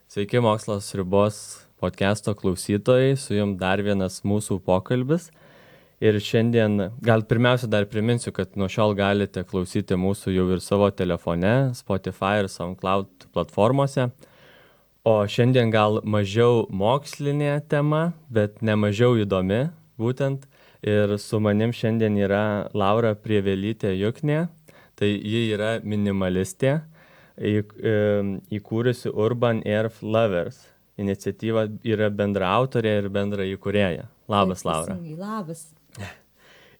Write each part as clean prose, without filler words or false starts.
Sveiki, Mokslas ribos podcast'o klausytojai, su jums dar vienas mūsų pokalbis. Ir šiandien, gal pirmiausia dar priminsiu, kad nuo šiol galite klausyti mūsų jau ir savo telefone, Spotify ir SoundCloud platformose. O šiandien gal mažiau mokslinė tema, bet ne mažiau įdomi būtent. Ir su manim šiandien yra Laura Prievelytė Juknė, tai ji yra minimalistė, įkūrusi Urban Air Lovers. Iniciatyva yra bendra autorė ir bendra įkūrėja. Labas, Laura. Labas.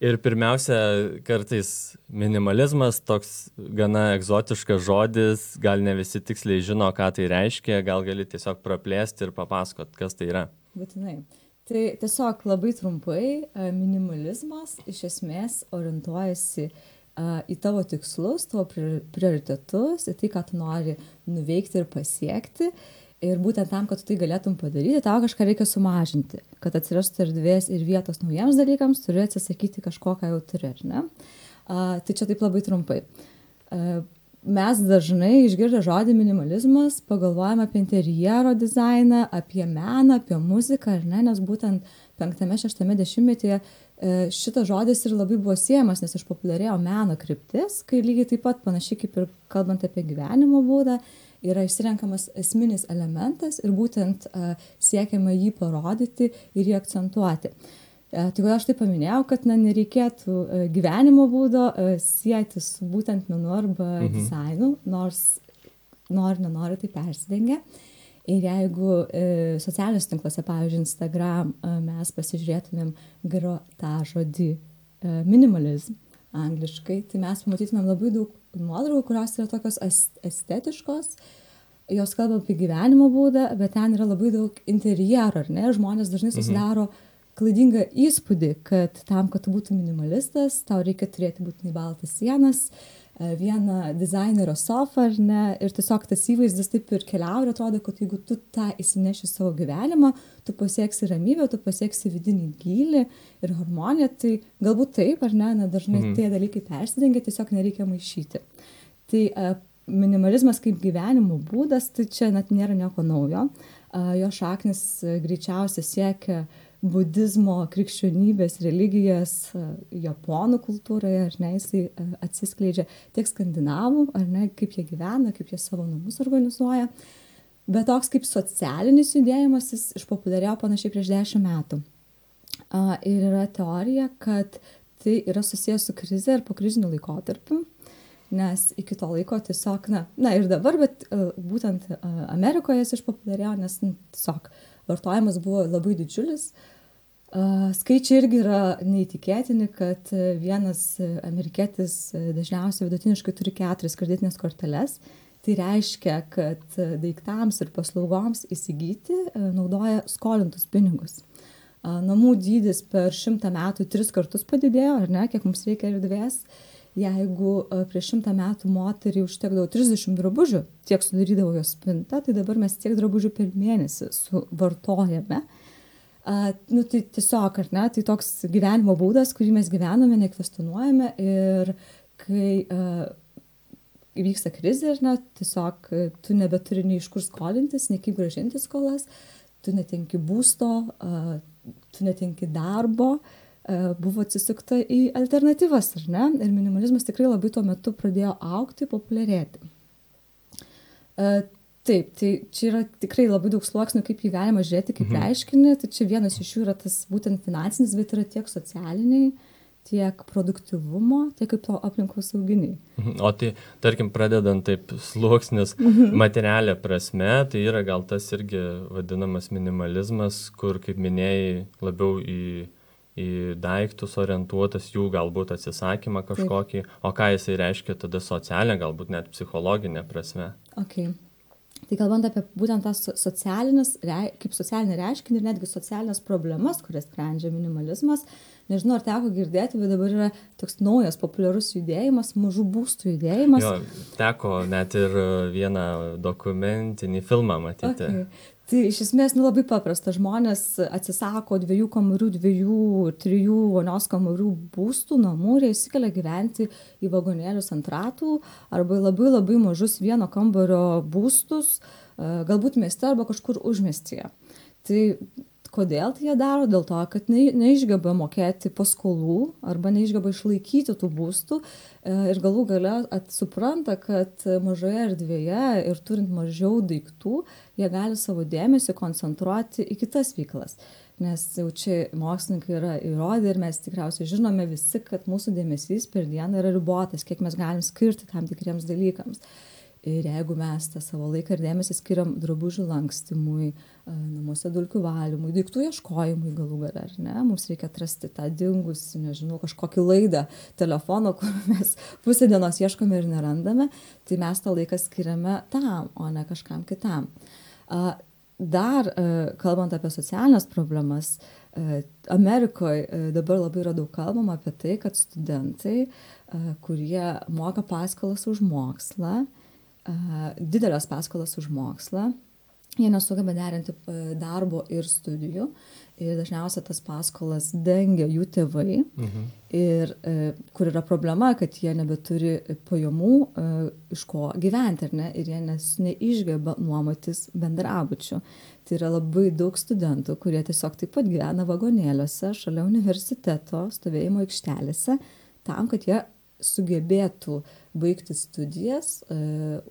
Ir pirmiausia, kartais minimalizmas toks gana egzotiškas žodis, gal ne visi tiksliai žino, ką tai reiškia, gal gali tiesiog praplėsti ir papasakot, kas tai yra. Būtinai. Tai tiesiog labai trumpai, minimalizmas iš esmės orientuojasi į tavo tikslus, tavo prioritetus, į tai, ką tu nori nuveikti ir pasiekti. Ir būtent tam, kad tu tai galėtum padaryti, tau kažką reikia sumažinti. Kad atsirastų erdvės ir vietos naujiems dalykams, turi atsisakyti kažko, ką jau turi, ar ne? Tai čia taip labai trumpai. Mes dažnai išgirdę žodį minimalizmas pagalvojame apie interjero dizainą, apie meną, apie muziką, ar ne? Nes būtent 5-6 dešimtmetyje šitas žodis ir labai buvo siejamas, nes išpopuliarėjo meno kryptis, kai lygiai taip pat panašiai kaip ir kalbant apie gyvenimo būdą, yra išsirenkamas esminis elementas ir būtent siekiama jį parodyti ir jį akcentuoti. Tai kodėl aš tai paminėjau, kad nereikėtų gyvenimo būdo sieti su būtent menu arba dizainu, nors nenori tai persidengia. Ir jeigu socialiniuose tinkluose, pavyzdžiui, Instagram, mes pasižiūrėtumėm tą žodį minimalizm angliškai, tai mes pamatytumėm labai daug nuotraukų, kurios yra tokios estetiškos, jos kalba apie gyvenimo būdą, bet ten yra labai daug interjero, ar ne? Žmonės dažnai susidaro klaidingą įspūdį, kad tam, kad tu būtum minimalistas, tau reikia turėti būtinai baltas sienas, vieną dizainerio sofą, ar ne? Ir tiesiog tas įvaizdis taip ir keliauja ir atrodo, kad jeigu tu tą įsineši savo gyvenimą, tu pasieksi ramybę, tu pasieksi vidinį gylį ir harmoniją, tai galbūt taip, ar ne? Dažnai tie dalykai persidengia, tiesiog nereikia maišyti. Tai minimalizmas kaip gyvenimo būdas, tai čia net nėra nieko naujo. Jo šaknis greičiausiai siekia budizmo, krikščionybės, religijos, japonų kultūroje, ar ne, jisai atsiskleidžia tiek skandinavų, ar ne, kaip jie gyvena, kaip jie savo namus organizuoja. Bet toks kaip socialinis judėjimas, jis išpopuliarėjo panašiai prieš 10 metų. Ir yra teorija, kad tai yra susijęs su krize ir pokriziniu laikotarpiu, nes iki to laiko tiesiog, na ir dabar, bet būtent Amerikoje jis išpopuliarėjo, nes tiesiog vartojimas buvo labai didžiulis. Skaičiai irgi yra neįtikėtini, kad vienas amerikietis dažniausiai vidutiniškai turi 4 kreditinės korteles. Tai reiškia, kad daiktams ir paslaugoms įsigyti naudoja skolintus pinigus. Namų dydis per 100 metų 3 kartus padidėjo, ar ne, kiek mums reikia erdvės. Jeigu prieš 100 metų moteriai užtekdavo 30 drabužių, tiek sudarydavo jos spinta, tai dabar mes tiek drabužių per mėnesį suvartojame. Tai tiesiog, ar ne, tai toks gyvenimo būdas, kurį mes gyvename, nekvestionuojame ir kai įvyksta krizė, ar ne, tiesiog tu nebeturi nei iš kur skolintis, nei kaip grąžinti skolas, tu netenki būsto, tu netenki darbo, buvo atsisukta į alternatyvas, ar ne? Ir minimalizmas tikrai labai tuo metu pradėjo augti, populiarėti. Taip, tai čia yra tikrai labai daug sluoksnių, kaip jį galima žiūrėti, kaip reiškinį. Tai čia vienas iš jų yra tas būtent finansinis, bet yra tiek socialiniai, tiek produktyvumo, tiek kaip aplinkosauginiai. O tai, tarkim, pradedant taip sluoksnis materialia prasme, tai yra gal tas irgi vadinamas minimalizmas, kur, kaip minėjai, labiau į daiktus orientuotas, jų galbūt atsisakymą kažkokį, o ką jisai reiškia tada socialinė, galbūt net psichologinė prasme. Okay. Tai kalbant apie būtent tas kaip socialinį reiškinį ir netgi socialinės problemas, kurias sprendžia minimalizmas, nežinau, ar teko girdėti, bet dabar yra toks naujas populiarus judėjimas, mažų būstų judėjimas. Jo, teko net ir vieną dokumentinį filmą matyti. Okay. Tai iš esmės labai paprasta. Žmonės atsisako 2 kambarių, 2, 3 vonios kambarių būstų, namų ir jie įsikelia gyventi į vagonėlius ant ratų arba labai mažus 1 kambario būstus, galbūt mieste arba kažkur užmiestyje. Tai kodėl tai jie daro? Dėl to, kad neišgeba mokėti paskolų arba neišgeba išlaikyti tų būstų ir galų gale supranta, kad mažoje erdvėje ir turint mažiau daiktų, jie gali savo dėmesį koncentruoti į kitas veiklas. Nes jau čia mokslininkai yra įrodę ir mes tikriausiai žinome visi, kad mūsų dėmesys per dieną yra ribotas, kiek mes galim skirti tam tikriems dalykams. Ir jeigu mes tą savo laiką ir dėmesį skiriam drabužių lankstymui, namuose dulkių valymui, daiktų ieškojimui galų gale, ar ne, mums reikia atrasti tą dingusį, nežinau, kažkokį laidą telefono, kur mes pusę dienos ieškome ir nerandame, tai mes tą laiką skiriame tam, o ne kažkam kitam. Dar, kalbant apie socialinės problemas, Amerikoje dabar labai yra daug kalbama apie tai, kad studentai, kurie moka paskolas už mokslą, didelės paskolas už mokslą, jie nesugeba derinti darbo ir studijų ir dažniausiai tas paskolas dengia jų tėvai ir kur yra problema, kad jie nebeturi pajamų iš ko gyventi, ar ne, ir jie neišgeba nuomotis bendrabučių. Tai yra labai daug studentų, kurie tiesiog taip pat gyvena vagonėliuose šalia universiteto stovėjimo aikštelėse tam, kad jie sugebėtų baigti studijas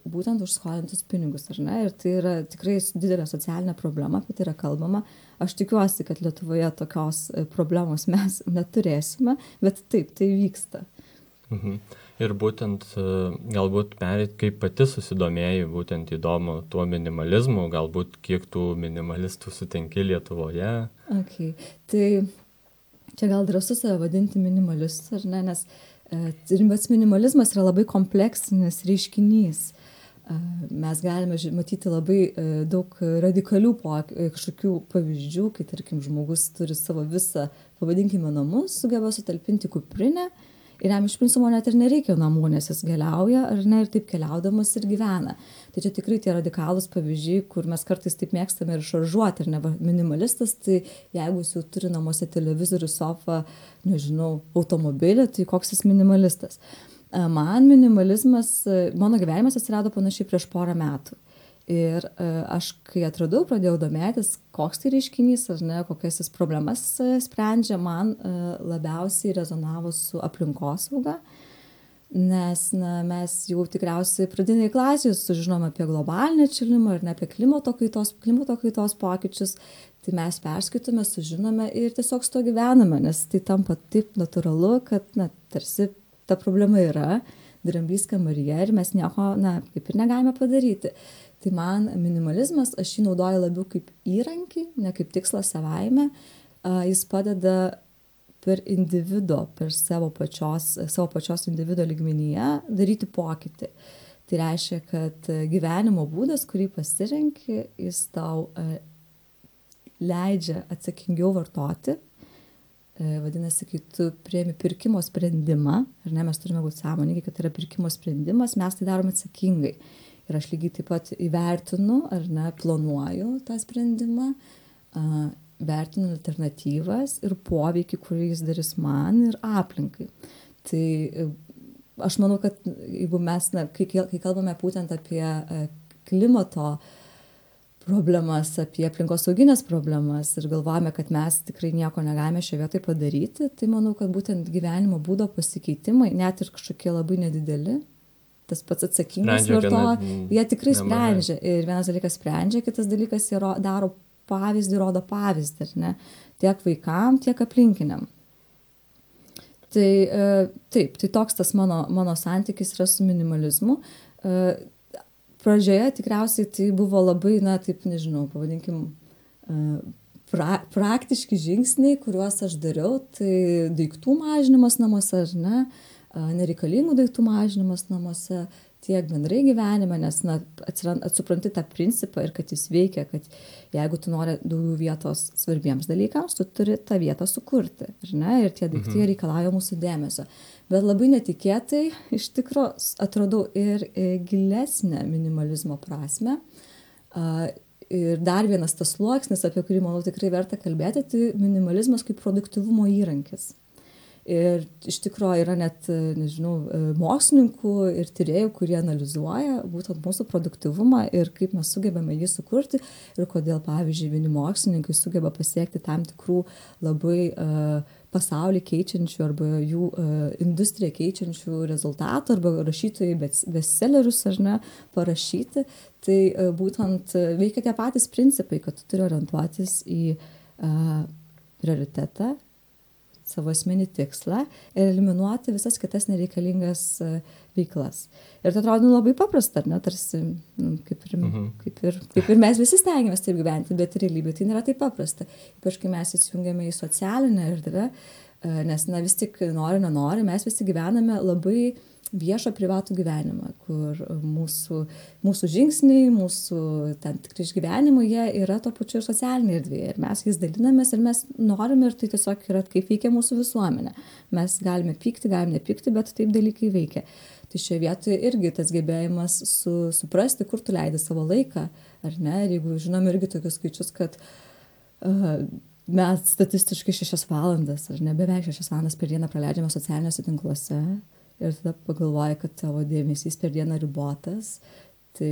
būtent už skolintus pinigus, ar ne? Ir tai yra tikrai didelė socialinė problema, apie tai yra kalbama. Aš tikiuosi, kad Lietuvoje tokios problemos mes neturėsime, bet taip, tai vyksta. Ir būtent galbūt pereit, kaip pati susidomėjai, būtent įdomu tuo minimalizmu, galbūt kiek tų minimalistų sutinki Lietuvoje? Okay. Tai čia gal drąsu save vadinti minimalistus, ar ne, nes pats minimalizmas yra labai kompleksinis reiškinys. Mes galime matyti labai daug radikalių kažkokių pavyzdžių, kai, tarkim, žmogus turi savo visą, pavadinkime, namus, sugeba sutalpinti kuprinę ir jam iš principo net ir nereikia namų, nes jis keliauja, ar ne, ir taip keliaudamas ir gyvena. Tai čia tikrai tie radikalūs pavyzdžiai, kur mes kartais taip mėgstame ir šaržuoti, ir ne minimalistas, tai jeigu jis jau turi namuose televizorių, sofą, nežinau, automobilį, tai koks jis minimalistas. Man minimalizmas, mano gyvenimas atsirado panašiai prieš 4 metų. Ir aš, kai atradau, pradėjau domėtis, koks tai reiškinys, ar ne, kokias jis problemas sprendžia, man labiausiai rezonavo su aplinkosauga, nes mes jau tikriausiai pradinėje klasėje sužinom apie globalinį atšilimą ir ne apie klimato kaitos pokyčius, tai mes perskaitome, sužinome ir tiesiog su to gyvename, nes tai tampa taip natūralu, kad tarsi ta problema yra, dramblys kambaryje ir mes nieko, kaip ir negalime padaryti. Tai man minimalizmas, aš jį naudoju labiau kaip įrankį, ne kaip tikslą savaime. Jis padeda per individo, per savo pačios individo lygmenyje daryti pokytį. Tai reiškia, kad gyvenimo būdas, kurį pasirenki, jis tau leidžia atsakingiau vartoti. Vadinasi, kai tu priimi pirkimo sprendimą, ar ne, mes turime būti sąmoningi, kad tai yra pirkimo sprendimas, mes tai darome atsakingai. Ir aš lygiai taip pat įvertinu, ar ne, planuoju tą sprendimą, vertinu alternatyvas ir poveikį, kurį jis darys man ir aplinkai. Tai aš manau, kad jeigu mes, kai kalbame būtent apie klimato problemas, apie aplinkosauginės problemas ir galvojame, kad mes tikrai nieko negalime šioje vietoje padaryti, tai manau, kad būtent gyvenimo būdo pasikeitimai, net ir kažkokie labai nedideli, tas pats atsakingas jie tikrai sprendžia. Ir vienas dalykas sprendžia, kitas dalykas jie daro pavyzdį, rodo pavyzdį, ar ne, tiek vaikam, tiek aplinkiniam. Tai taip, tai toks tas mano santykis yra su minimalizmu. Pradžioje tikriausiai tai buvo labai, taip nežinau, pavadinkim, praktiški žingsniai, kuriuos aš dariau, tai daiktų mažinimas namuose, ar ne, nereikalingų daiktų mažinimas namuose, tiek bendrai gyvenime, nes supranti tą principą ir kad jis veikia, kad jeigu tu nori daugiau vietos svarbiems dalykams, tu turi tą vietą sukurti, ar ne, ir tie daiktai reikalauja mūsų dėmesio. Bet labai netikėtai iš tikro atradau ir gilesnę minimalizmo prasmę. Ir dar vienas tas sluoksnis, apie kurį, manau, tikrai verta kalbėti, tai minimalizmas kaip produktyvumo įrankis. Ir iš tikrųjų yra net, nežinau, mokslininkų ir tyrėjų, kurie analizuoja būtent mūsų produktyvumą ir kaip mes sugebame jį sukurti ir kodėl, pavyzdžiui, vieni mokslininkai sugeba pasiekti tam tikrų labai pasaulį keičiančių arba jų industriją keičiančių rezultatų arba rašytojai bestsellerius ar ne parašyti. Tai būtent veikia tie patys principai, kad tu turi orientuotis į prioritetą, savo esminį tikslą ir eliminuoti visas kitas nereikalingas veiklas. Ir tai atrodo labai paprasta, ar ne, tarsi kaip ir mes visi stengiamės taip gyventi, bet realybėje tai nėra taip paprasta. Ypač kai mes įsijungiame į socialinę erdvę, nes vis tik nenori, mes visi gyvename labai viešą privatų gyvenimą, kur mūsų žingsniai, mūsų tam tikri išgyvenimai, jie yra to pačiu ir socialinėje erdvėje. Ir mes jais dalinamės ir mes norime, ir tai tiesiog yra, kaip veikia mūsų visuomenė. Mes galime pykti, galime nepykti, bet taip dalykai veikia. Tai šioje vietoje irgi tas gebėjimas suprasti, kur tu leidi savo laiką, ar ne. Ir jeigu žinom irgi tokius skaičius, kad mes statistiškai 6 valandas, ar ne, beveik 6 valandas per dieną praleidžiame socialiniuose tinkluose, ir tada pagalvoji, kad tavo dėmesys per dieną ribotas, tai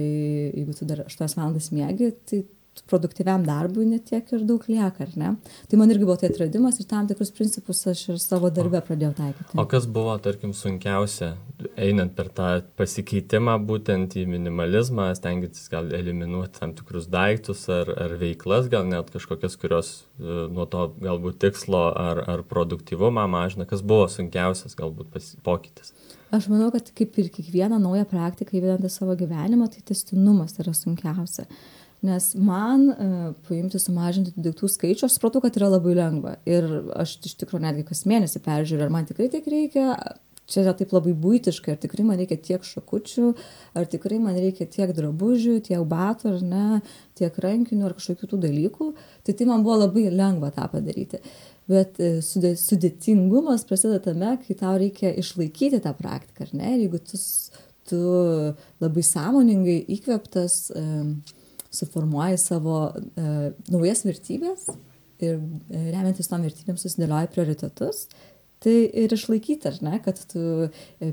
jeigu tu dar 8 valandas miegi, tai produktyviam darbui netiek ir daug lieka, ar ne? Tai man irgi buvo tai atradimas ir tam tikrus principus aš ir savo darbe pradėjau taikyti. O kas buvo, tarkim, sunkiausia, einant per tą pasikeitimą būtent į minimalizmą, stengiantis gal eliminuoti tam tikrus daiktus ar veiklas, gal net kažkokias, kurios nuo to galbūt tikslo ar produktyvumą mažina, kas buvo sunkiausias galbūt pokytis? Aš manau, kad kaip ir kiekvieną naują praktiką įvedant į savo gyvenimą, tai tęstinumas yra sunkiausia. Nes man paimti, sumažinti daiktų skaičių, aš supratau, kad yra labai lengva. Ir aš iš tikrųjų netgi kas mėnesį peržiūriu, ar man tikrai tiek reikia, čia yra taip labai buitiškai, ar tikrai man reikia tiek šakučių, ar tikrai man reikia tiek drabužių, tiek batų, ar ne, tiek rankinių, ar kažkokių tų dalykų. Tai man buvo labai lengva tą padaryti. Bet sudėtingumas prasideda tame, kai tau reikia išlaikyti tą praktiką, ar ne? Ir jeigu tu labai sąmoningai įkvėptas suformuoji savo naujas vertybės ir remiantis tom vertybėm susidėlioji prioritetus, tai ir išlaikyti, ar ne, kad tu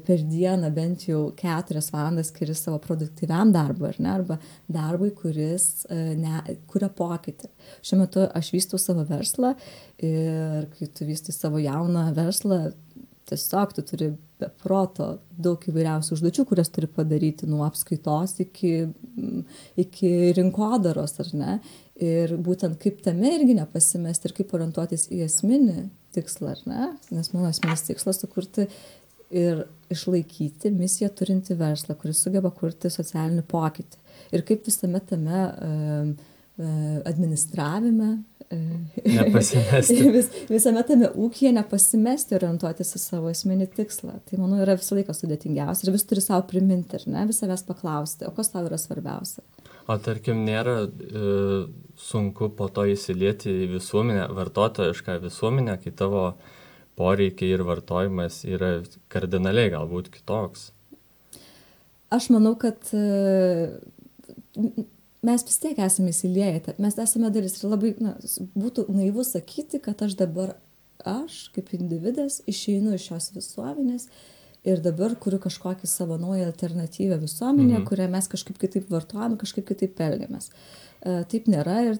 per dieną bent jau 4 valandas skiri savo produktyviam darbui, ar ne, arba darbui, kuris kuria pokytį. Šiuo metu aš vystau savo verslą ir kai tu vystai savo jauną verslą, tiesiog tu turi be proto daug įvairiausių užduočių, kurias turi padaryti nuo apskaitos iki rinkodaros, ar ne? Ir būtent kaip tame irgi nepasimesti ir kaip orientuotis į esminį tikslą, ar ne? Nes mano esminis tikslas sukurti ir išlaikyti misiją turinti verslą, kuris sugeba kurti socialinį pokytį. Ir kaip visame tame administravime, visame tame ūkyje nepasimesti orientuotis į savo esminį tikslą. Tai, manau, yra visą laiką sudėtingiausia ir vis turi savo priminti, ar ne, vis savęs paklausti, o kas tau yra svarbiausia. O tarkim, nėra sunku po to įsilieti į visuomenę, vartotojišką visuomenę, kai tavo poreikiai ir vartojimas yra kardinaliai galbūt kitoks? Aš manau, kad mes vis tiek esame įsilieję, mes esame dalis ir labai būtų naivu sakyti, kad aš kaip individas išeinu iš šios visuomenės ir dabar kuriu kažkokį savo naują alternatyvę visuomenę, kurią mes kažkaip kitaip vartojame, kažkaip kitaip elgiamės. Taip nėra ir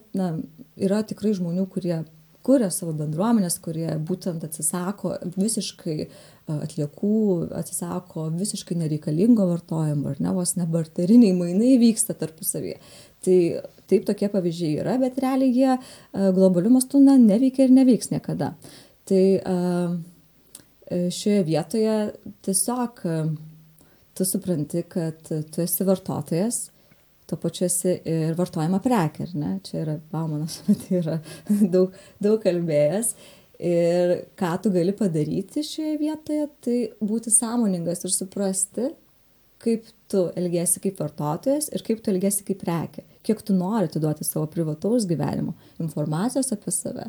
yra tikrai žmonių, kurie kuria savo bendruomenės, kurie būtent atsisako visiškai atliekų, atsisako visiškai nereikalingo vartojimo, ar ne, vos nebarteriniai mainai vyksta tarpusavyje. Tai taip tokie pavyzdžiai yra, bet realiai jie globaliu mastu neveikia ir neveiks niekada. Tai šioje vietoje tiesiog tu supranti, kad tu esi vartotojas, to pačiu esi ir vartojama prekė, ar ne? Čia yra Baumanas, tai yra daug kalbėjęs. Ir ką tu gali padaryti šioje vietoje, tai būti sąmoningas ir suprasti, kaip tu elgiesi kaip vartotojas ir kaip tu elgiesi kaip prekė. Kiek tu nori atiduoti savo privataus gyvenimo informacijos apie save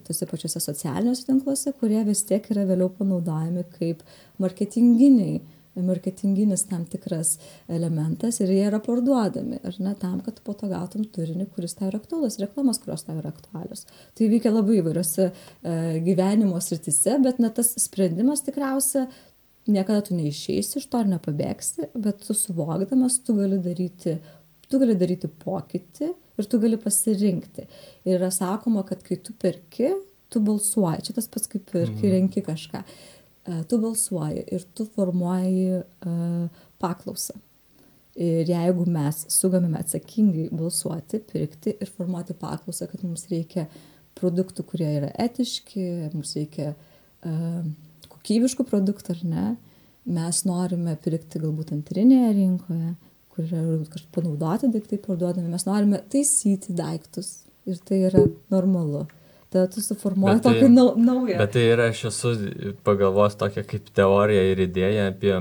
tose pačiose socialiniuose tinkluose, kurie vis tiek yra vėliau panaudojami kaip marketinginiai marketinginis tam tikras elementas ir jie yra parduodami, ar ne, tam, kad po to gautum turinį, kuris tau yra aktualus, reklamas, kurios tau yra aktualios. Tai veikia labai įvairiose gyvenimo srityse, bet tas sprendimas tikriausia niekada tu neišeisi iš to ar nepabėgsi, bet tu suvokdamas, tu gali daryti pokytį ir tu gali pasirinkti. Ir yra sakoma, kad kai tu perki, tu balsuoji. Čia tas pats kaip ir kai renki kažką. Tu balsuoji ir tu formuoji paklausą. Ir jeigu mes sugebame atsakingai balsuoti, pirkti ir formuoti paklausą, kad mums reikia produktų, kurie yra etiški, mums reikia kokybiškų produktų ar ne, mes norime pirkti galbūt antrinėje rinkoje, kur yra kažkaip panaudoti daiktai parduodami, mes norime taisyti daiktus ir tai yra normalu. Tada tu suformuoji tokį naują. Bet tai yra, aš esu pagalvos tokia kaip teorija ir idėja apie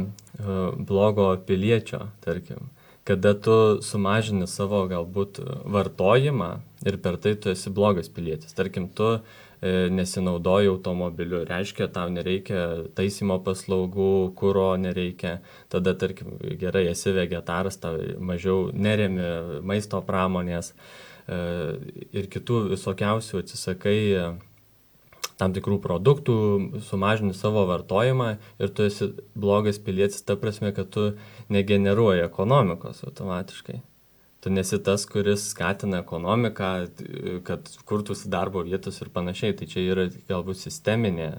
blogo piliečio, tarkim. Kada tu sumažini savo galbūt vartojimą ir per tai tu esi blogas pilietis. Tarkim, tu nesinaudoji automobiliu, reiškia, tau nereikia taisymo paslaugų, kuro nereikia. Tada, tarkim, gerai, esi vegetaras, tau mažiau neremi maisto pramonės ir kitų visokiausių atsisakai tam tikrų produktų, sumažini savo vartojimą ir tu esi blogas pilietis ta prasme, kad tu negeneruoji ekonomikos automatiškai. Tu nesi tas, kuris skatina ekonomiką, kad kurtųsi darbo vietos ir panašiai. Tai čia yra galbūt sisteminė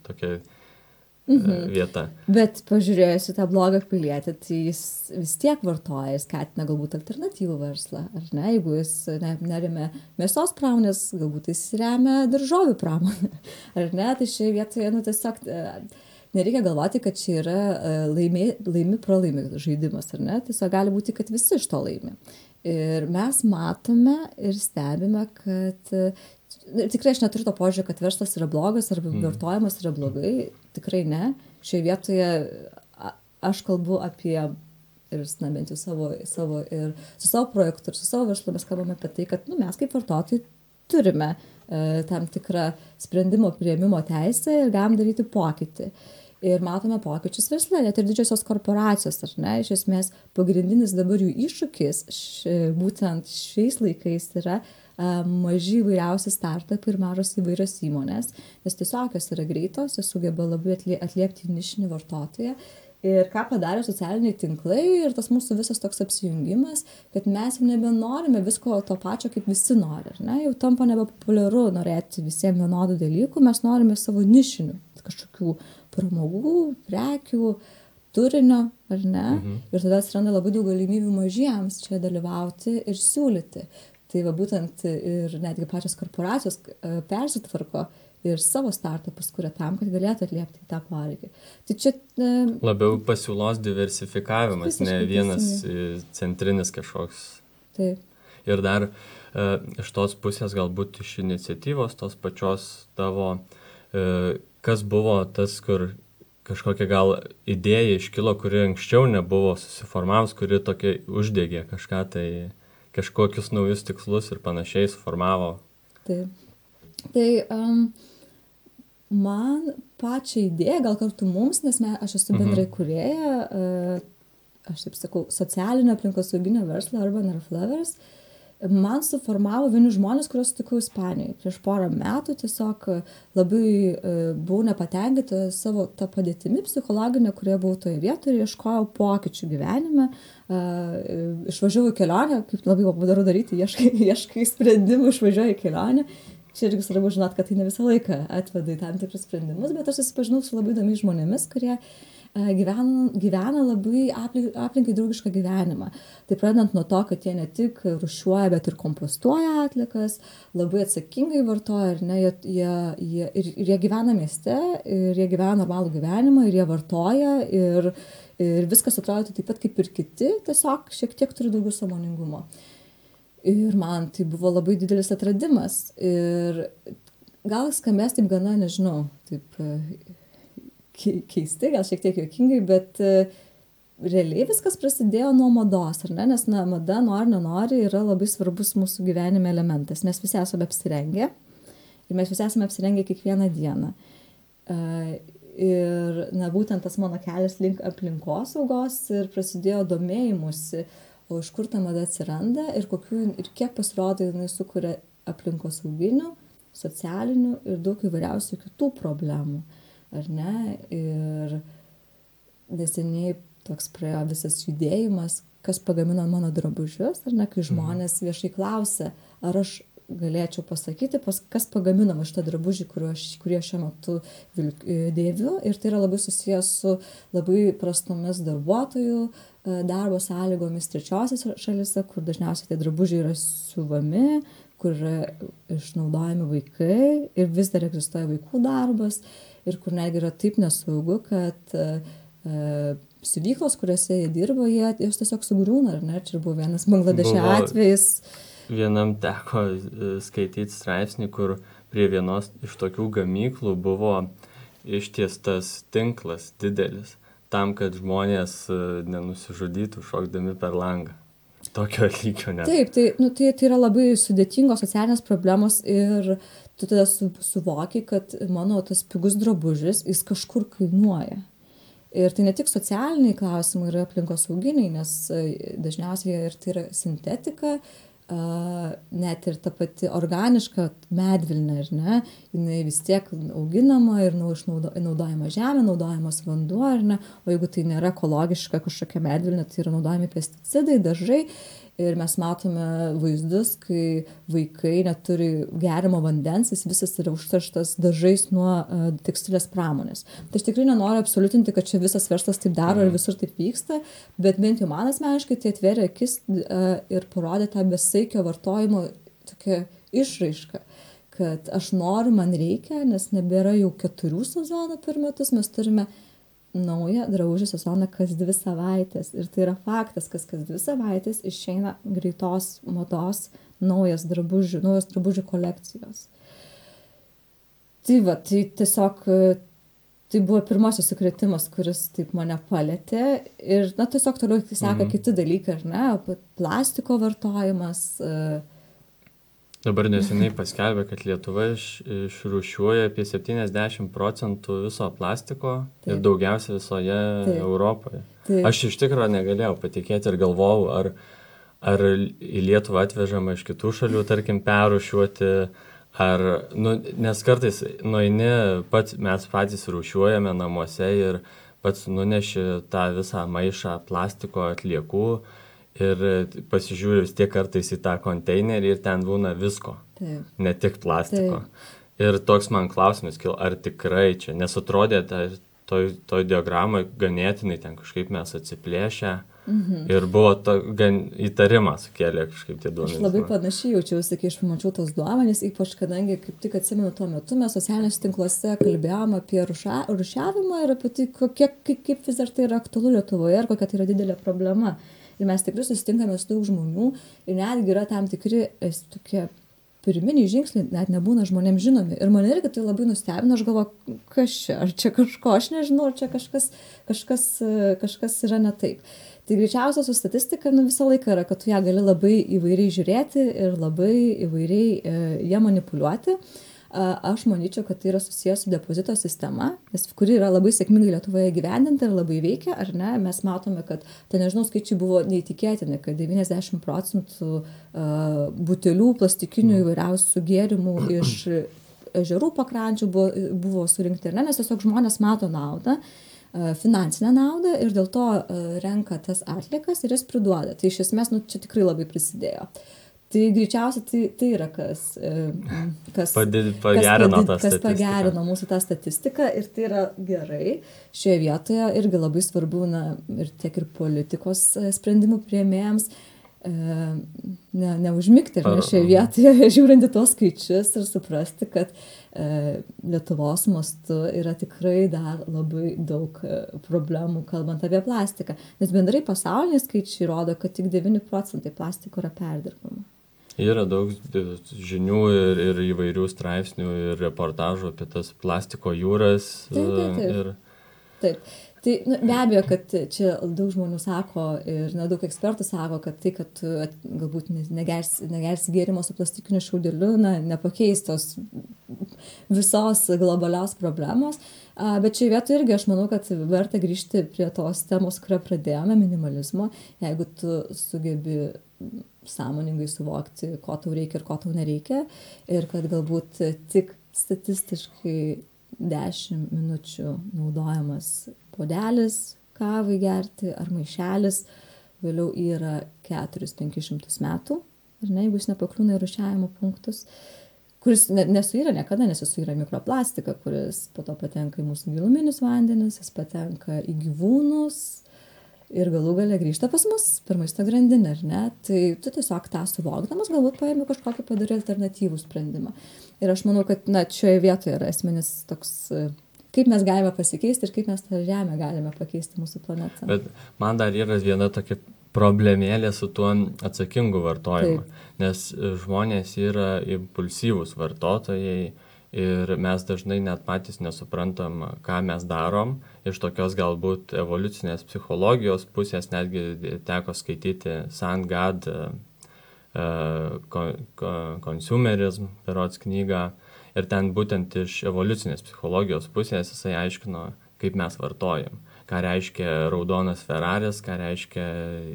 tokia vieta. Bet pažiūrėjus į tą blogą pilietį, tai jis vis tiek vartoja ir skatina galbūt alternatyvų verslą, ar ne? Jeigu jis neremia mėsos pramonės, galbūt jis remia daržovių pramonę, ar ne? Tai šioje vietoje, tiesiog nereikia galvoti, kad čia yra laimi žaidimas, ar ne? Tiesiog gali būti, kad visi iš to laimi. Ir mes matome ir stebime, kad tikrai aš neturiu to požiūrį, kad verslas yra blogas arba vartojimas yra blogai, tikrai ne. Šioje vietoje aš kalbu apie, ir bent jau savo ir su savo projektu ir su savo verslu mes kalbame apie tai, kad mes kaip vartotojai turime tam tikrą sprendimo priėmimo teisę ir galim daryti pokytį. Ir matome pokyčius versle, net ir didžiosios korporacijos, ar ne, iš esmės pagrindinis dabar jų iššūkis būtent šiais laikais yra maži įvairiausi startupai ir mažos įvairios įmonės, nes tiesiog jos yra greitos, jos sugeba labai atliepti nišinį vartotoją. Ir ką padarė socialiniai tinklai ir tas mūsų visas toks apsijungimas, kad mes jau nebenorime visko to pačio, kaip visi nori, ar ne? Jau tampa nebepopuliaru norėti visiems vienodų dalykų, mes norime savo nišinių, kažkokių pramogų, prekių, turinio, ar ne? Ir tada atsiranda labai daug galimybių mažiems čia dalyvauti ir siūlyti. Tai va būtent ir netgi pačios korporacijos persitvarko ir savo startupus kuria tam, kad galėtų atliepti tą poreikį. Tai čia labiau pasiūlos diversifikavimas, ne vienas centrinis kažkoks. Taip. Ir dar iš tos pusės galbūt iš iniciatyvos tos pačios tavo, kas buvo tas, kur kažkokia gal idėja iškilo, kuri anksčiau nebuvo susiformavus, kuri tokia uždegė kažką, tai kažkokius naujus tikslus ir panašiai suformavo. Taip. Tai man pačią idėją, gal kartu mums, nes aš esu bendrai kūrėja, aš taip sakau, socialinio aplinkosauginio verslo Urban Reflowers, man suformavo vieni žmonės, kuriuos sutikau Ispanijoje. Prieš porą metų tiesiog labai buvau nepatenkinta savo tą padėtimi psichologinę, kurioje buvau toje vietoje ir ieškojau pokyčių gyvenime. Išvažiavau į kelionę, kaip labai populiaru daryti, ieškai sprendimų, išvažiuoju į kelionę. Čia irgi svarbu žinot, kad tai ne visą laiką atveda į tam tikrus sprendimus, bet aš susipažinau su labai įdomiais žmonėmis, kurie gyvena labai aplinkai draugišką gyvenimą. Tai pradedant nuo to, kad jie ne tik rūšiuoja, bet ir kompostuoja atliekas, labai atsakingai vartoja, ar ne, jie gyvena mieste, ir jie gyvena normalų gyvenimą, ir jie vartoja, ir viskas atrodo taip pat kaip ir kiti, tiesiog šiek tiek turi daugiau sąmoningumo. Ir man tai buvo labai didelis atradimas. Ir gal skambės taip gana, nežinau, taip keistai, gal šiek tiek juokingai, bet realiai viskas prasidėjo nuo mados, ar ne? Nes mada, nenori, yra labai svarbus mūsų gyvenime elementas. Mes visi esame apsirengę ir mes visi esame apsirengę kiekvieną dieną. Ir būtent tas mano kelias link aplinkosaugos ir prasidėjo domėjimusi, o iš kur ta mada atsiranda ir kiek pasirodo jinai sukuria aplinkosauginių, socialinių ir daug įvairiausių kitų problemų, ar ne? Ir neseniai toks praėjo visas judėjimas, kas pagamino mano drabužius, ar ne, kai žmonės viešai klausia, ar aš galėčiau pasakyti, kas pagamino šitą drabužį, kurį aš šiuo metu dėviu, ir tai yra labai susijęs su labai prastomis darbuotojų darbo sąlygomis trečiosiose šalyse, kur dažniausiai tie drabužiai yra siuvami, kur yra išnaudojami vaikai ir vis dar egzistuoja vaikų darbas ir kur netgi yra taip nesaugu, kad siuvyklos, kuriuose jie dirbo, jos tiesiog sugriūna, ar ne? Čia buvo vienas Bangladešo atvejis. Vienam teko skaityti straipsnį, kur prie vienos iš tokių gamyklų buvo ištiestas tinklas didelis, tam, kad žmonės nenusižudytų šokdami per langą. Tokio lygio net. Taip, tai yra labai sudėtingos socialinės problemos ir tu tada suvoki, kad mano tas pigus drabužis, jis kažkur kainuoja. Ir tai ne tik socialiniai klausimai yra aplinkosauginiai, nes dažniausiai ir tai yra sintetika, net ir ta pati organiška medvilnė, ar ne, jinai vis tiek auginama ir naudojama žemė, naudojamas vanduo, ar ne, o jeigu tai nėra ekologiška kažkokia medvilnė, tai yra naudojami pesticidai, dažai. Ir mes matome vaizdus, kai vaikai neturi geriamo vandens, jis visas yra užterštas dažais nuo tekstilės pramonės. Tai aš tikrai nenoriu absoliutinti, kad čia visas verslas taip daro ir visur taip vyksta, bet bent jau man asmeniškai tai atvėrė akis ir parodė tą besaikio vartojimo tokią išraišką, kad aš noriu, man reikia, nes nebėra jau 4 sezonų per metus, mes turime naują drabužių sezoną kas 2 savaitės. Ir tai yra faktas, kas 2 savaitės išeina greitos mados naujos drabužių kolekcijos. Tai tiesiog tai buvo pirmasis sukrėtimas, kuris taip mane palėtė. Ir tiesiog toliau seka kiti dalykai, ar ne? Plastiko vartojimas. Dabar neseniai paskelbė, kad Lietuva išrūšiuoja apie 70% viso plastiko. Taip. Ir daugiausia visoje Europoje. Taip. Aš iš tikrųjų negalėjau patikėti ir galvojau, ar į Lietuvą atvežama iš kitų šalių, tarkim, perrūšiuoti, nes kartais mes patys rūšiuojame namuose ir pats nuneši tą visą maišą plastiko atliekų. Ir pasižiūriu vis tiek kartais į tą konteinerį ir ten būna visko, taip, ne tik plastiko. Taip. Ir toks man klausimas kilo, ar tikrai čia, nes atrodė toj diagramai ganėtinai ten kažkaip mes atsiplėšę ir buvo gan įtarimas sukėlė kažkaip tie duomenys. Aš labai panašiai jaučiausi, kai aš pamačiau tos duomenys, ypač kadangi kaip tik atsimenu tuo metu mes socialiniuose tinkluose kalbėjom apie rūšiavimą ir apie tai, kaip vis dar tai yra aktualu Lietuvoje ir kokia tai yra didelė problema. Ir mes tikrai susitinkame su daug žmonių ir netgi yra tam tikri tokie pirminiai žingsniai, net nebūna žmonėms žinomi. Ir mane irgi tai labai nustebino, aš galvoju, kas čia, ar čia kažko, aš nežinau, ar čia kažkas yra ne taip. Tai greičiausia su statistika visą laiką yra, kad tu ją gali labai įvairiai žiūrėti ir labai įvairiai ją manipuliuoti. Aš manyčiau, kad tai yra susijęs su depozito sistema, kuri yra labai sėkmingai Lietuvoje gyvendinta ir labai veikia, ar ne? Mes matome, kad, skaičiai buvo neįtikėtini, kad 90% butelių plastikinių įvairiausių gėrimų iš ežerų pakrančių buvo surinkti, ar ne? Nes tiesiog žmonės mato naudą, finansinę naudą ir dėl to renka tas atliekas ir jas priduoda. Tai iš esmės, čia tikrai labai prisidėjo. Tai greičiausiai tai yra kas pagerino mūsų tą statistiką ir tai yra gerai. Šioje vietoje irgi labai svarbu ir tiek ir politikos sprendimų priėmėjams neužmigti šioje vietoje, žiūrint į tos skaičius ir suprasti, kad Lietuvos mastu yra tikrai dar labai daug problemų, kalbant apie plastiką. Nes bendrai pasauliniai skaičiai rodo, kad tik 9% plastiko yra perdirbama. Yra daug žinių ir įvairių straipsnių ir reportažų apie tas plastiko jūras. Taip. Tai be abejo, kad čia daug žmonių sako ir daug ekspertų sako, kad tai, kad tu galbūt negersi gėrimo su plastikiniu šiaudeliu, nepakeis tos visos globalios problemos. Bet šioje vietoje irgi aš manau, kad verta grįžti prie tos temos, kurią pradėjome, minimalizmo. Jeigu tu sugebi sąmoningai suvokti, ko tau reikia ir ko tau nereikia, ir kad galbūt tik statistiškai 10 minučių naudojamas puodelis kavai gerti ar maišelis, vėliau yra 400-500 metų, ar ne, jeigu jis nepakliūna į rūšiavimo punktus, kuris nesuyra niekada, nes jis suyra mikroplastiką, kuris po to patenka į mūsų giluminius vandenis, jis patenka į gyvūnus ir galų gale grįžta pas mus per maisto grandinę, ar ne? Tai tu tiesiog tą suvokdamas galbūt paėmė kažkokį padarį alternatyvų sprendimą. Ir aš manau, kad šioje vietoje yra esminis toks, kaip mes galime pasikeisti ir kaip mes tą žemę galime pakeisti mūsų planetą. Bet man dar yra viena tokia problemėlė su tuo atsakingu vartojimu, nes žmonės yra impulsyvūs vartotojai ir mes dažnai net patys nesuprantam, ką mes darom. Iš tokios galbūt evoliucinės psichologijos pusės netgi teko skaityti Sandgad Consumerism berods knygą ir ten būtent iš evoliucinės psichologijos pusės jisai aiškino, kaip mes vartojam. Ką reiškia raudonas Ferraris, ką reiškia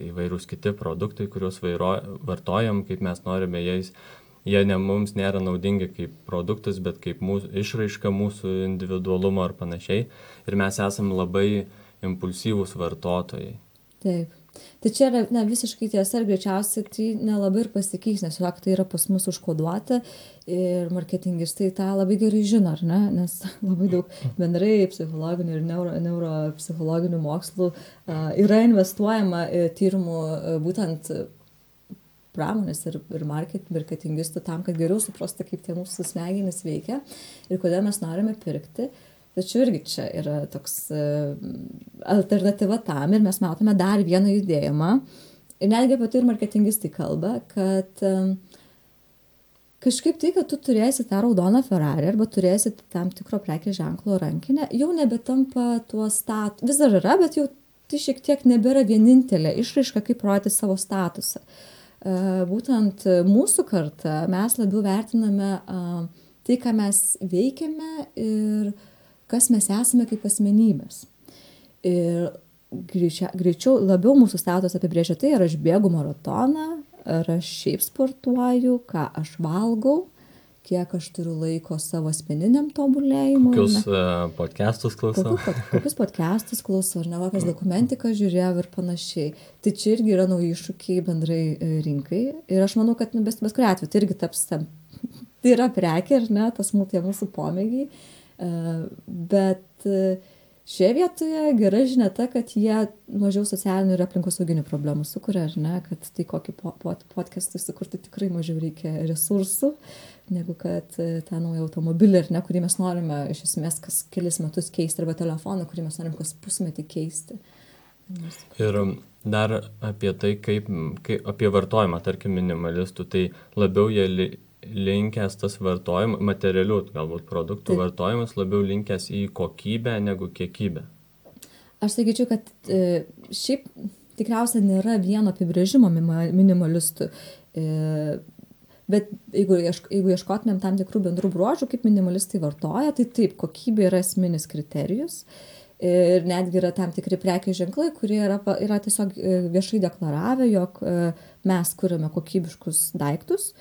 įvairūs kiti produktai, kuriuos vartojam, kaip mes norime jais. Jie mums nėra naudingi kaip produktus, bet kaip išraiška mūsų individualumo ar panašiai. Ir mes esam labai impulsyvūs vartotojai. Taip. Tai čia yra visiškai tiesa ir greičiausiai tai nelabai ir pasikeis, nes tiesiog tai yra pas mus užkoduota ir marketingistai tą labai gerai žino, ar ne? Nes labai daug bendrai psichologinių ir neuropsichologinių mokslų yra investuojama tyrimų būtent pramonės ir marketingistų tam, kad geriau suprasti, kaip tie mūsų smegenys veikia ir kodėl mes norime pirkti. Tačiau irgi čia yra toks alternatyva tam ir mes matome dar vieną judėjimą. Ir netgi apie tai ir marketingistai kalba, kad kažkaip tai, kad tu turėsi tą raudoną Ferrari arba turėsi tam tikro prekės ženklo rankinę, jau nebetampa tuo vis dar yra, bet jau tai šiek tiek nebėra vienintelė išraiška, kaip rodyti savo statusą. Būtent mūsų karta mes labiau vertiname tai, ką mes veikiame ir kas mes esame kaip asmenybės. Ir greičiau labiau mūsų statusą apibrėžia tai, ar aš bėgu maratoną, ar aš šiaip sportuoju, ką aš valgau, kiek aš turiu laiko savo asmeniniam tobulėjimui. Kokius podcastus klausau. Kokius podcastus klausau, ar ne, kokias dokumentiką žiūrėjau ir panašiai. Tai čia irgi yra nauji iššūkiai bendrai rinkai. Ir aš manau, kad bet kuriuo atveju tai irgi taps tam. Tai yra prekė, ar ne, tas mūsų pomėgiai. Bet šioje vietoje gera žinia ta, kad jie mažiau socialinių ir aplinkosauginių problemų sukuria, ar ne, kad tai kokį podcastą sukurti tikrai mažiau reikia resursų, negu kad tą naują automobilį, ar ne, kurį mes norime iš esmės kas kelis metus keisti, arba telefoną, kurį mes norime kas pusmetį keisti. Ir dar apie tai, kaip apie vartojimą, tarkim, minimalistų, tai labiau jie linkęs tas vartojimas, materialių galbūt produktų vartojimas labiau linkęs į kokybę negu kiekybę. Aš sakyčiau, kad šiaip tikriausiai nėra vieno apibrėžimo minimalistų, bet jeigu ieškotumėm tam tikrų bendrų bruožų, kaip minimalistai vartoja, tai taip, kokybė yra esminis kriterijus ir netgi yra tam tikri prekės ženklai, kurie yra tiesiog viešai deklaravę, jog mes kuriame kokybiškus daiktus,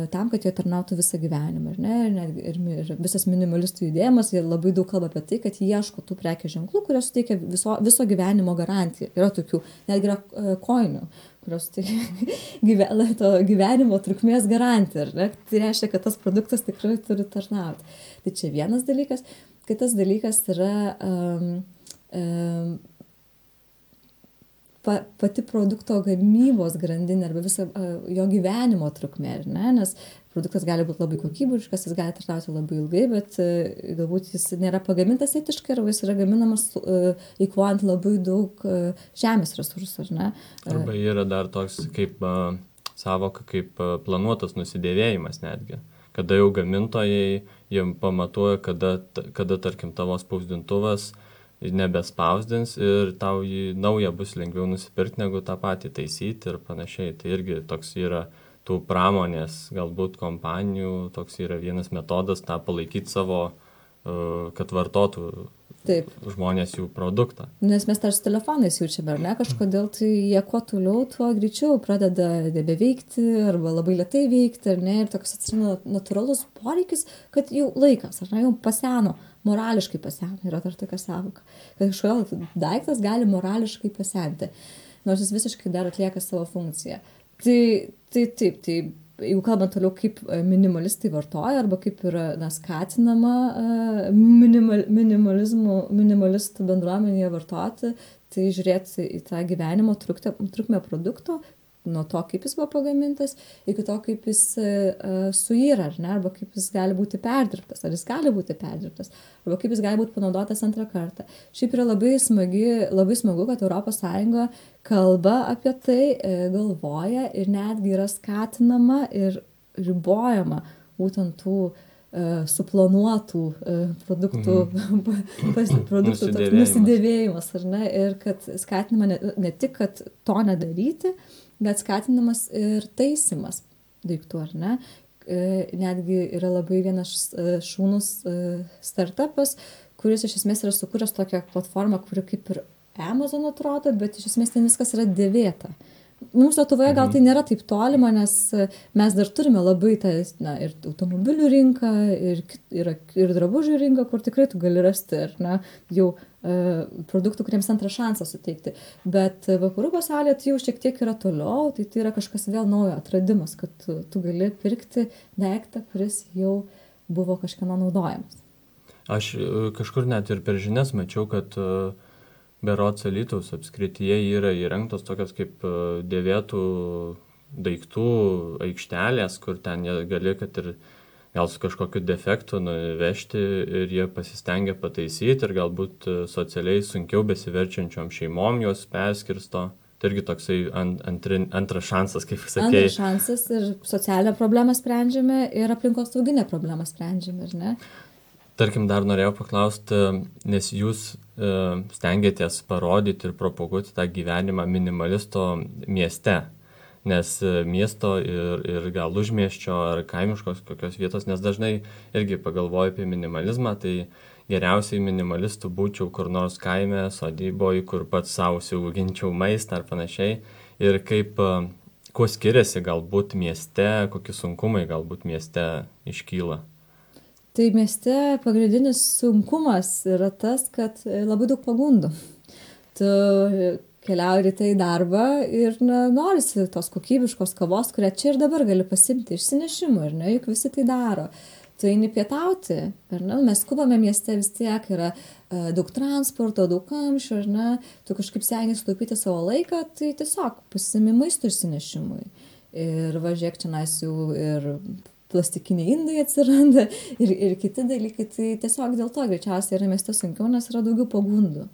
tam, kad jie tarnautų visą gyvenimą. Ir visas minimalistų judėjimas, jie labai daug kalba apie tai, kad jie ieško tų prekės ženklų, kurios suteikia viso gyvenimo garantiją. Yra tokių, netgi yra koinių, kurios suteikia to gyvenimo trukmės garantiją. Tai reiškia, kad tas produktas tikrai turi tarnauti. Tai čia vienas dalykas. Kitas dalykas yra pati produkto gamybos grandinė arba viso jo gyvenimo trukmė, ne? Nes produktas gali būti labai kokybiškas, jis gali tarnauti labai ilgai, bet galbūt jis nėra pagamintas etiškai arba jis yra gaminamas eikvojant labai daug žemės resursų, ne? Arba yra dar toks kaip savoka, kaip planuotas nusidėvėjimas netgi. Kada jau gamintojai jiem pamatuoja, kada tarkim tavo spausdintuvas nebespausdins ir tau jį naują bus lengviau nusipirkti negu tą patį taisyti ir panašiai. Tai irgi toks yra tų pramonės galbūt kompanijų, toks yra vienas metodas tą palaikyti savo, kad vartotų Taip. žmonės jų produktą. Nes mes tarsi telefonais jaučiame, ar ne, kažkodėl tai jie kuo toliau, tuo greičiau pradeda nebeveikti arba labai lėtai veikti, ar ne, ir toks atsiranda natūralus poreikis, kad jau laikas, ar ne, jau paseno, morališkai paseno, yra dar tokia sąvoka, kad kažkodėl daiktas gali morališkai pasenti, nors jis visiškai dar atlieka savo funkciją. Tai jeigu kalbant toliau, kaip minimalistai vartoja arba kaip yra skatinama minimalistų bendruomenėje vartoti, tai žiūrėti į tą gyvenimo trukmę produkto, nuo to, kaip jis buvo pagamintas, iki to, kaip jis suyra, ar ne, arba kaip jis gali būti perdirbtas, ar jis gali būti perdirbtas, arba kaip jis gali būti panaudotas antrą kartą. Šiaip yra labai smagu, kad ES kalba apie tai, galvoja ir netgi yra skatinama ir ribojama būtent tų suplanuotų produktų, produktų nusidėvėjimas, ar ne, ir kad skatinama ne tik, kad to nedaryti, bet skatinamas ir taisymas daiktų, ar ne. Netgi yra labai vienas šaunus startupas, kuris iš esmės yra sukūręs tokią platformą, kuri kaip ir Amazon atrodo, bet iš esmės ten viskas yra dėvėta. Mums Lietuvoje gal tai nėra taip tolima, nes mes dar turime labai tą, ir automobilių rinką, ir drabužių rinką, kur tikrai tu gali rasti, ar ne, jau produktų, kuriems antrą šansą suteikti. Bet vakarų pasaulyje tai jau šiek tiek yra toliau, tai yra kažkas vėl naujo atradimas, kad tu gali pirkti daiktą, kuris jau buvo kažkieno naudojamas. Aš kažkur net ir per žinias mačiau, kad berods Alytaus apskrityje yra įrengtos tokios kaip dėvėtų daiktų aikštelės, kur ten gali, kad ir gal su kažkokiu defektu nuvežti ir jie pasistengia pataisyti ir galbūt socialiai sunkiau besiverčiančiom šeimom juos perskirsto. Tai irgi toksai antras šansas, kaip sakėjai. Antras šansas ir socialinę problemą sprendžiame ir aplinkosauginę problemą sprendžiame, ar ne? Tarkim, dar norėjau paklausti, nes jūs stengiatės parodyti ir propaguoti tą gyvenimą minimalisto mieste, nes miesto ir gal užmiesčio ar kaimiškos kokios vietos, nes dažnai irgi pagalvoju apie minimalizmą, tai geriausiai minimalistų būčiau kur nors kaime, sodyboje, kur pats savo užsiauginčiau maistą ar panašiai, ir kaip, kuo skiriasi galbūt mieste, kokie sunkumai galbūt mieste iškyla. Tai mieste pagrindinis sunkumas yra tas, kad labai daug pagundų. Tu keliauji ryte į darbą ir norisi tos kokybiškos kavos, kurią čia ir dabar gali pasimti išsinešimui, ar ne, juk visi tai daro. Tu eini pietauti, ar ne, mes skubame mieste, vis tiek yra daug transporto, daug kamščių, ar ne, tu kažkaip stengiasi sutaupyti savo laiką, tai tiesiog pasimi maisto išsinešimui. Ir važiuok čia jau ir plastikiniai indai atsiranda ir kiti dalykai, tai tiesiog dėl to greičiausiai yra mieste sunkiau, nes yra daugiau pagundų.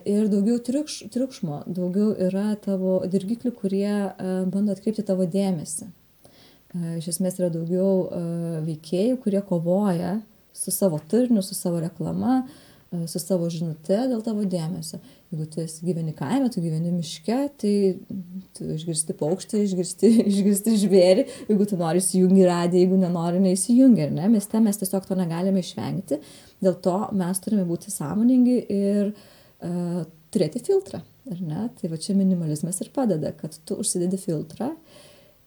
Ir daugiau triukšmo, daugiau yra tavo dirgiklių, kurie bando atkreipti tavo dėmesį. Iš esmės yra daugiau veikėjų, kurie kovoja su savo turiniu, su savo reklama, su savo žinute dėl tavo dėmesio. Jeigu tu gyveni kaime, tu gyveni miške, tai tu išgirsti paukštį, išgirsti žvėrį, jeigu tu nori įsijungi radiją, jeigu nenori, neįsijungi, ar ne? Mieste mes tiesiog to negalime išvengti, dėl to mes turime būti sąmoningi ir turėti filtrą, ar ne? Tai va čia minimalizmas ir padeda, kad tu užsidedi filtrą.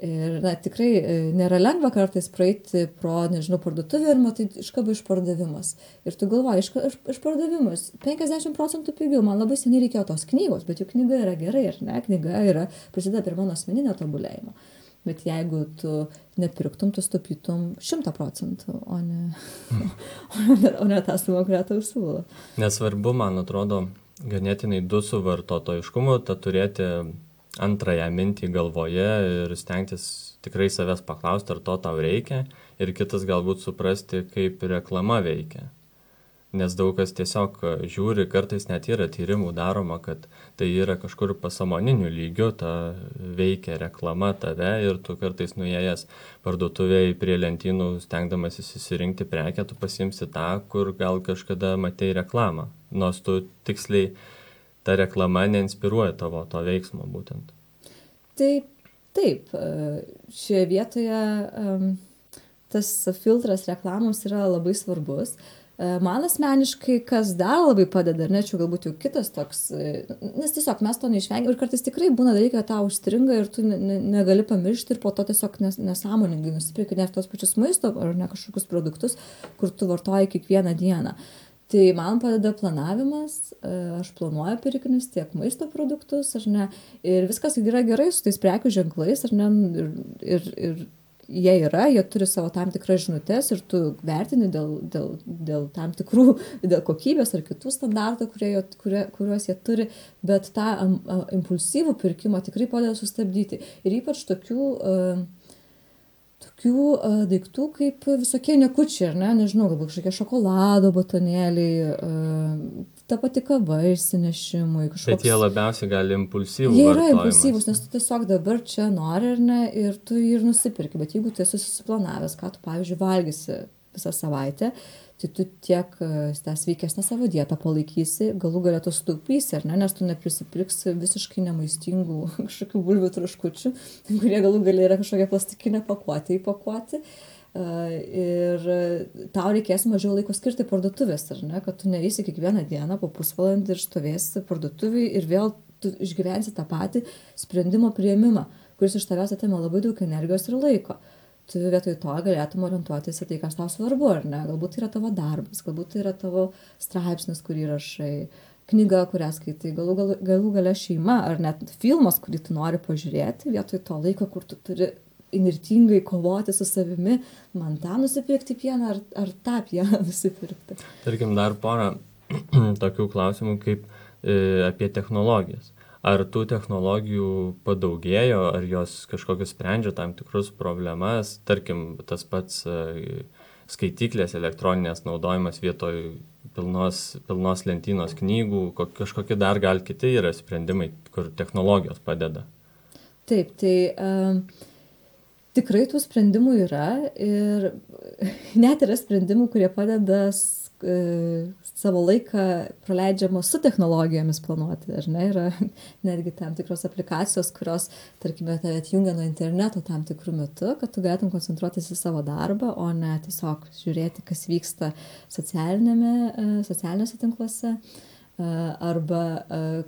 Ir tikrai nėra lengva kartais praeiti pro, parduotuvę ir matai iškaba išpardavimas. Ir tu galvoji, išpardavimas 50% pigiau, man labai seniai reikėjo tos knygos, bet juk knyga yra gerai, ar ne? Knyga prisideda prie mano asmeninio tobulėjimo. Bet jeigu tu nepirktum, tu stupytum 100%, o ne tą sumą, kurią tau siūlo. Nesvarbu, man atrodo, ganėtinai su vartotojiškumu, tą turėti antrąją mintį galvoje ir stengtis tikrai savęs paklausti, ar to tau reikia, ir kitas galbūt suprasti, kaip reklama veikia. Nes daug kas tiesiog žiūri, kartais net yra tyrimų daroma, kad tai yra kažkur pasąmoniniu lygiu, ta veikia reklama tave ir tu kartais nuėjęs parduotuvėje prie lentynų, stengdamasis įsirinkti prekę, tu pasiimsi tą, kur gal kažkada matei reklamą, nors tu tiksliai ta reklama neinspiruoja tavo to veiksmo būtent. Taip, šioje vietoje tas filtras reklamos yra labai svarbus. Man asmeniškai, kas dar labai padeda, ar ne, čia galbūt jau kitas toks, nes tiesiog mes to neišvengiam ir kartais tikrai būna dalykai, kad tau užstringa ir tu negali pamiršti ir po to tiesiog nesąmoningai nusipirki net tos pačius maisto ar ne kažkokius produktus, kur tu vartoji kiekvieną dieną. Tai man padeda planavimas, aš planuoju pirkinius tiek maisto produktus, ar ne, ir viskas yra gerai su tais prekių ženklais, ar ne, ir jie yra, jie turi savo tam tikras žinutes ir tu vertini dėl tam tikrų, dėl kokybės ar kitų standartų, kuriuos jie turi, bet tą impulsyvų pirkimą tikrai padeda sustabdyti. Ir ypač tokių daiktų kaip visokie niekučiai, ar ne, nežinau, galbūt kažkokie šokolado batonėliai, ta pati kava išsinešimui. Bet jie labiausiai gali impulsyvų jie yra vartojimas. impulsyvūs, nes tu tiesiog dabar čia nori, ar ne, ir tu jį ir nusipirki, bet jeigu tu esi susiplanavęs, ką tu, pavyzdžiui, valgysi visą savaitę, tai tu tiek tą sveikesnę savo dietą palaikysi, galų galę tu sutaupysi, ar ne, nes tu neprisipirksi visiškai nemaistingų kažkokių bulvių traškučių, kurie galų galę yra kažkokia plastikinė pakuotė įpakuoti. Ir tau reikės mažiau laiko skirti parduotuvės, ar ne, kad tu neįsi kiekvieną dieną po pusvalandį ir stovėsi parduotuviai ir vėl tu išgyvensi tą patį sprendimo priėmimą, kuris iš tavęs atima labai daug energijos ir laiko. Tu vietoj to galėtum orientuotis į tai, kas tau svarbu, ar ne? Galbūt tai yra tavo darbas, galbūt tai yra tavo straipsnis, kurį rašai, knyga, kurią skaitai, galų gale šeima, ar net filmas, kurį tu nori pažiūrėti, vietoj to laiko, kur tu turi inirtingai kovoti su savimi, man tą nusipirkti pieną, ar tą pieną nusipirkti. Tarkim, dar porą tokių klausimų kaip apie technologijas. Ar tų technologijų padaugėjo, ar jos kažkokius sprendžia tam tikrus problemas, tarkim, tas pats skaityklės elektroninės naudojimas vietoj pilnos lentynos knygų, kažkokie dar gal kiti yra sprendimai, kur technologijos padeda? Taip, tai tikrai tų sprendimų yra ir net yra sprendimų, kurie padeda savo laiką praleidžiamo su technologijomis planuoti, ar ne, yra netgi tam tikros aplikacijos, kurios, tarkime, tave atjungia nuo interneto tam tikrų metu, kad tu galėtum koncentruotis į savo darbą, o ne tiesiog žiūrėti, kas vyksta socialiniuose tinkluose, arba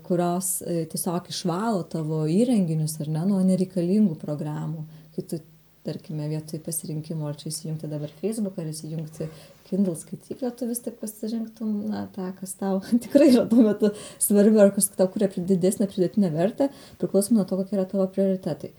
kurios tiesiog išvalo tavo įrenginius, ar ne, nuo nereikalingų programų, kai tu, tarkime, vietoj pasirinkimo, ar čia įsijungti dabar Facebook, ar įsijungti Kindle skaityklę, tu vis tik pasirinktum, tą, kas tau tikrai yra tuo metu svarbi, ar kas tau kuria didesnę pridėtinę vertę, priklausomai nuo to, kokie yra tavo prioritetai.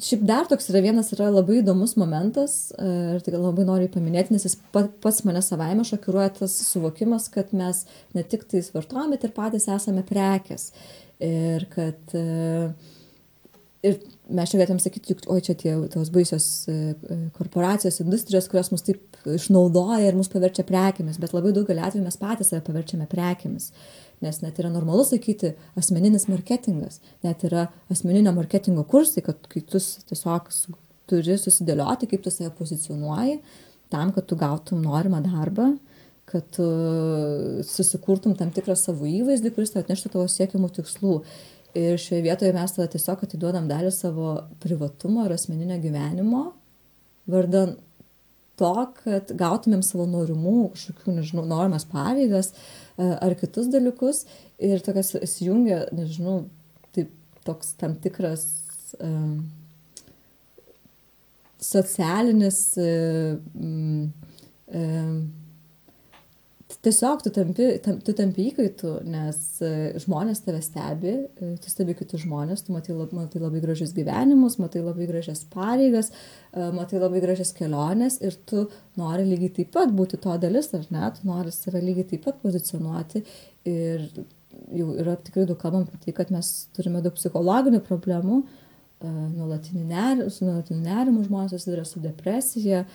Šiaip dar toks yra labai įdomus momentas, ir tai labai noriu paminėti, nes jis pats mane savaime šokiruoja tas suvokimas, kad mes ne tik tais vartojame, bet ir patys esame prekės. Ir kad ir mes čia galėtum sakyti, oi čia tos baisios korporacijos, industrijos, kurios mus taip išnaudoja ir mus paverčia prekėmis, bet labai daugelį atvejų mes patys save paverčiame prekėmis. Nes net yra normalu sakyti asmeninis marketingas, net yra asmeninio marketingo kursai, kad kai tu tiesiog turi susidėlioti, kaip tu save pozicionuoji, tam, kad tu gautum norimą darbą, kad tu susikurtum tam tikrą savo įvaizdį, kuris tau atneštų tavo siekiamų tikslų. Ir šioje vietoje mes tada tiesiog atiduodam dalį savo privatumo ir asmeninio gyvenimo, vardan to, kad gautumėm savo norimų, kažkokių, nežinau, norimas pareigas ar kitus dalykus. Ir tokias įsijungia, nežinau, taip, toks tam tikras socialinis tiesiog tu tampi įkaitu, nes žmonės tave stebi, tu stebi kitus žmonės, tu matai labai gražius gyvenimus, matai labai gražias pareigas, matai labai gražias keliones ir tu nori lygiai taip pat būti to dalis, ar ne, tu nori save lygiai taip pat pozicionuoti ir jau yra tikrai daug kalbam apie tai, kad mes turime daug psichologinių problemų, nuolatiniu nerimu žmonės susiduria su depresija,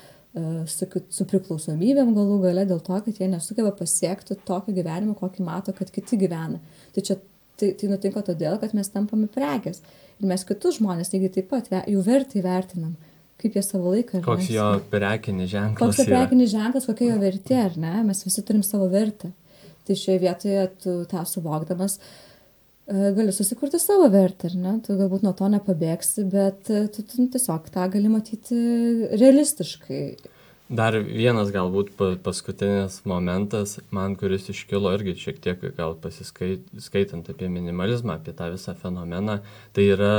su priklausomybėm galų gale dėl to, kad jie nesugeba pasiekti tokio gyvenimo, kokį mato, kad kiti gyvena. Tai nutinka todėl, kad mes tampame prekės. Ir mes kitus žmonės lygiai taip pat jų vertę įvertinam, kaip jie savo laiką. Koks jo prekinis ženklas Koks jo prekinis ženklas, kokia jo vertė, ar ne? Mes visi turim savo vertę. Tai šioje vietoje tu tą suvokdamas gali susikurti savo vertę, ar ne? Tu galbūt nuo to nepabėgsi, bet tu tiesiog tą gali matyti realistiškai. Dar vienas galbūt paskutinis momentas, man kuris iškilo irgi šiek tiek gal pasiskaitant apie minimalizmą, apie tą visą fenomeną, tai yra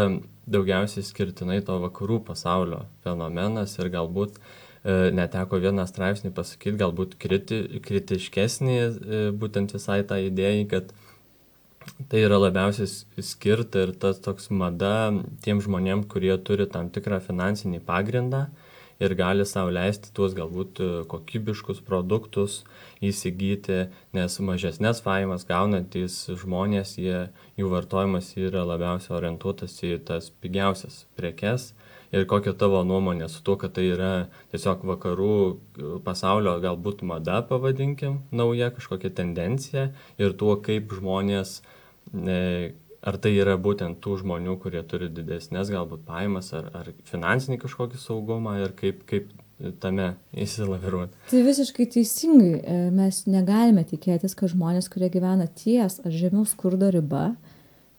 daugiausiai skirtinai to vakarų pasaulio fenomenas ir galbūt neteko vieną straipsnį pasakyti, galbūt kritiškesnį būtent visai tą idėją, kad tai yra labiausiai skirta ir tas toks mada tiem žmonėm, kurie turi tam tikrą finansinį pagrindą ir gali sau leisti tuos galbūt kokybiškus produktus įsigyti, nes mažesnės pajamas gaunantys žmonės, jų vartojimas yra labiausiai orientuotas į tas pigiausias prekes. Ir kokia tavo nuomonė su tuo, kad tai yra tiesiog vakarų pasaulio galbūt mada, pavadinkim, nauja kažkokia tendencija ir tuo, kaip žmonės, ar tai yra būtent tų žmonių, kurie turi didesnės galbūt pajamas ar finansinį kažkokį saugumą ir kaip tame įsilaviruoti. Tai visiškai teisingai. Mes negalime tikėtis, kad žmonės, kurie gyvena ties ar žemiau skurdo riba,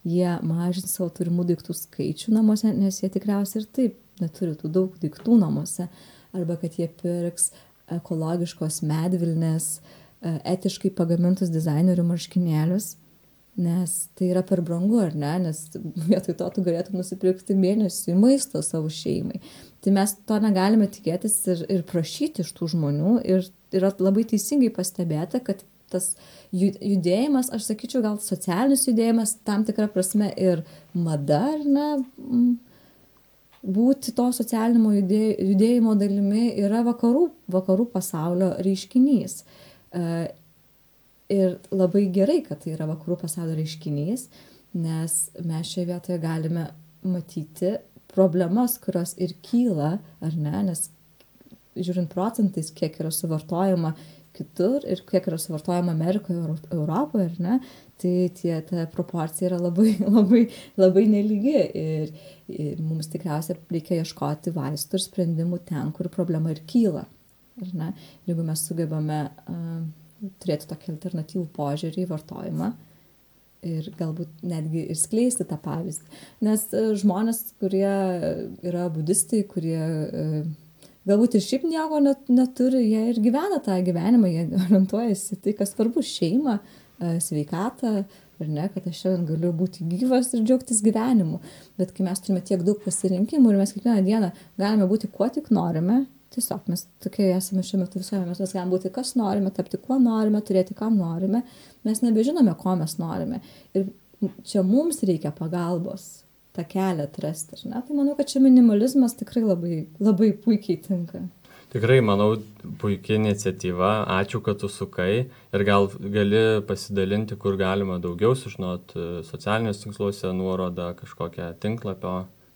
jie mažins savo turimų daiktų skaičių namuose, nes jie tikriausiai ir taip neturi tų daug daiktų namuose. Arba kad jie pirks ekologiškos medvilnės, etiškai pagamintus dizainerių marškinėlius, nes tai yra per brangu, ar ne? Nes vietoj to tu galėtum nusipirkti mėnesiui maisto savo šeimai. Tai mes to negalime tikėtis ir prašyti iš tų žmonių. Ir yra labai teisingai pastebėta, kad tas judėjimas, aš sakyčiau, gal socialinis judėjimas, tam tikra prasme ir mada, ar ne, būti to socialinimo judėjimo dalimi yra vakarų pasaulio reiškinys. Ir labai gerai, kad tai yra vakarų pasaulio reiškinys, nes mes šioje vietoje galime matyti problemas, kurios ir kyla, ar ne, nes žiūrint procentais, kiek yra suvartojama kitur ir kiek yra suvartojama Amerikoje, Europoje, ar ne, tai ta proporcija yra labai nelygi ir mums tikriausiai reikia ieškoti vaistų ir sprendimų ten, kur problema ir kyla, ar ne. Jeigu mes sugebame turėti tokį alternatyvų požiūrį į vartojimą ir galbūt netgi ir skleisti tą pavyzdį. Nes žmonės, kurie yra budistai, kurie galbūt ir šiaip nieko neturi, jie ir gyvena tą gyvenimą, jie orientuojasi tai, kas svarbu, šeimą, sveikatą, ar ne, kad aš šiandien galiu būti gyvas ir džiaugtis gyvenimu. Bet kai mes turime tiek daug pasirinkimų ir mes kiekvieną dieną galime būti kuo tik norime, tiesiog mes tokie esame šiuo metu visuomenė, mes galime būti kas norime, tapti kuo norime, turėti ką norime, mes nebežinome, ko mes norime. Ir čia mums reikia pagalbos tą kelią atrasti, ne? Tai manau, kad čia minimalizmas tikrai labai puikiai tinka. Tikrai, manau, puikia iniciatyva, ačiū, kad tu sukai ir gal gali pasidalinti, kur galima daugiau sužinoti socialiniuose tinkluose nuorodą, kažkokią tinklapio,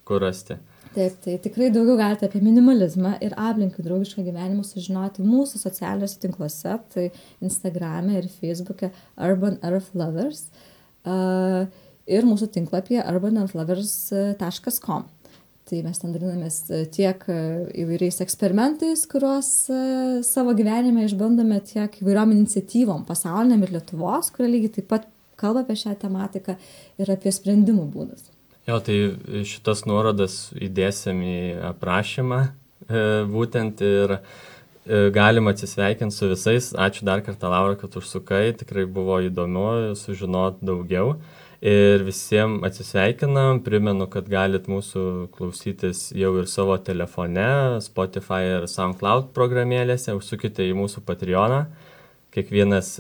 kur rasti. Taip, tai tikrai daugiau galite apie minimalizmą ir aplinkai draugišką gyvenimą sužinoti mūsų socialiniuose tinkluose, tai Instagrame ir Facebook'e Urban Earth Lovers ir mūsų tinklapyje urbanearthlovers.com. Tai mes ten dalinamės tiek įvairiais eksperimentais, kuriuos savo gyvenime išbandome, tiek įvairiom iniciatyvom pasauliniam ir Lietuvos, kurie lygiai taip pat kalba apie šią tematiką ir apie sprendimų būdus. Jo, tai šitas nuorodas įdėsim į aprašymą būtent ir galima atsisveikinti su visais. Ačiū dar kartą, Laura, kad užsukai, tikrai buvo įdomu sužinoti daugiau. Ir visiems atsisveikinam, primenu, kad galit mūsų klausytis jau ir savo telefone, Spotify ir SoundCloud programėlėse, užsukite į mūsų Patreoną, kiekvienas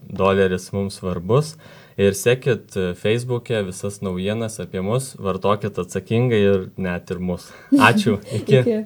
doleris mums svarbus. Ir sekit Facebook'e visas naujienas apie mus, vartokit atsakingai ir net ir mus. Ačiū, iki. Iki.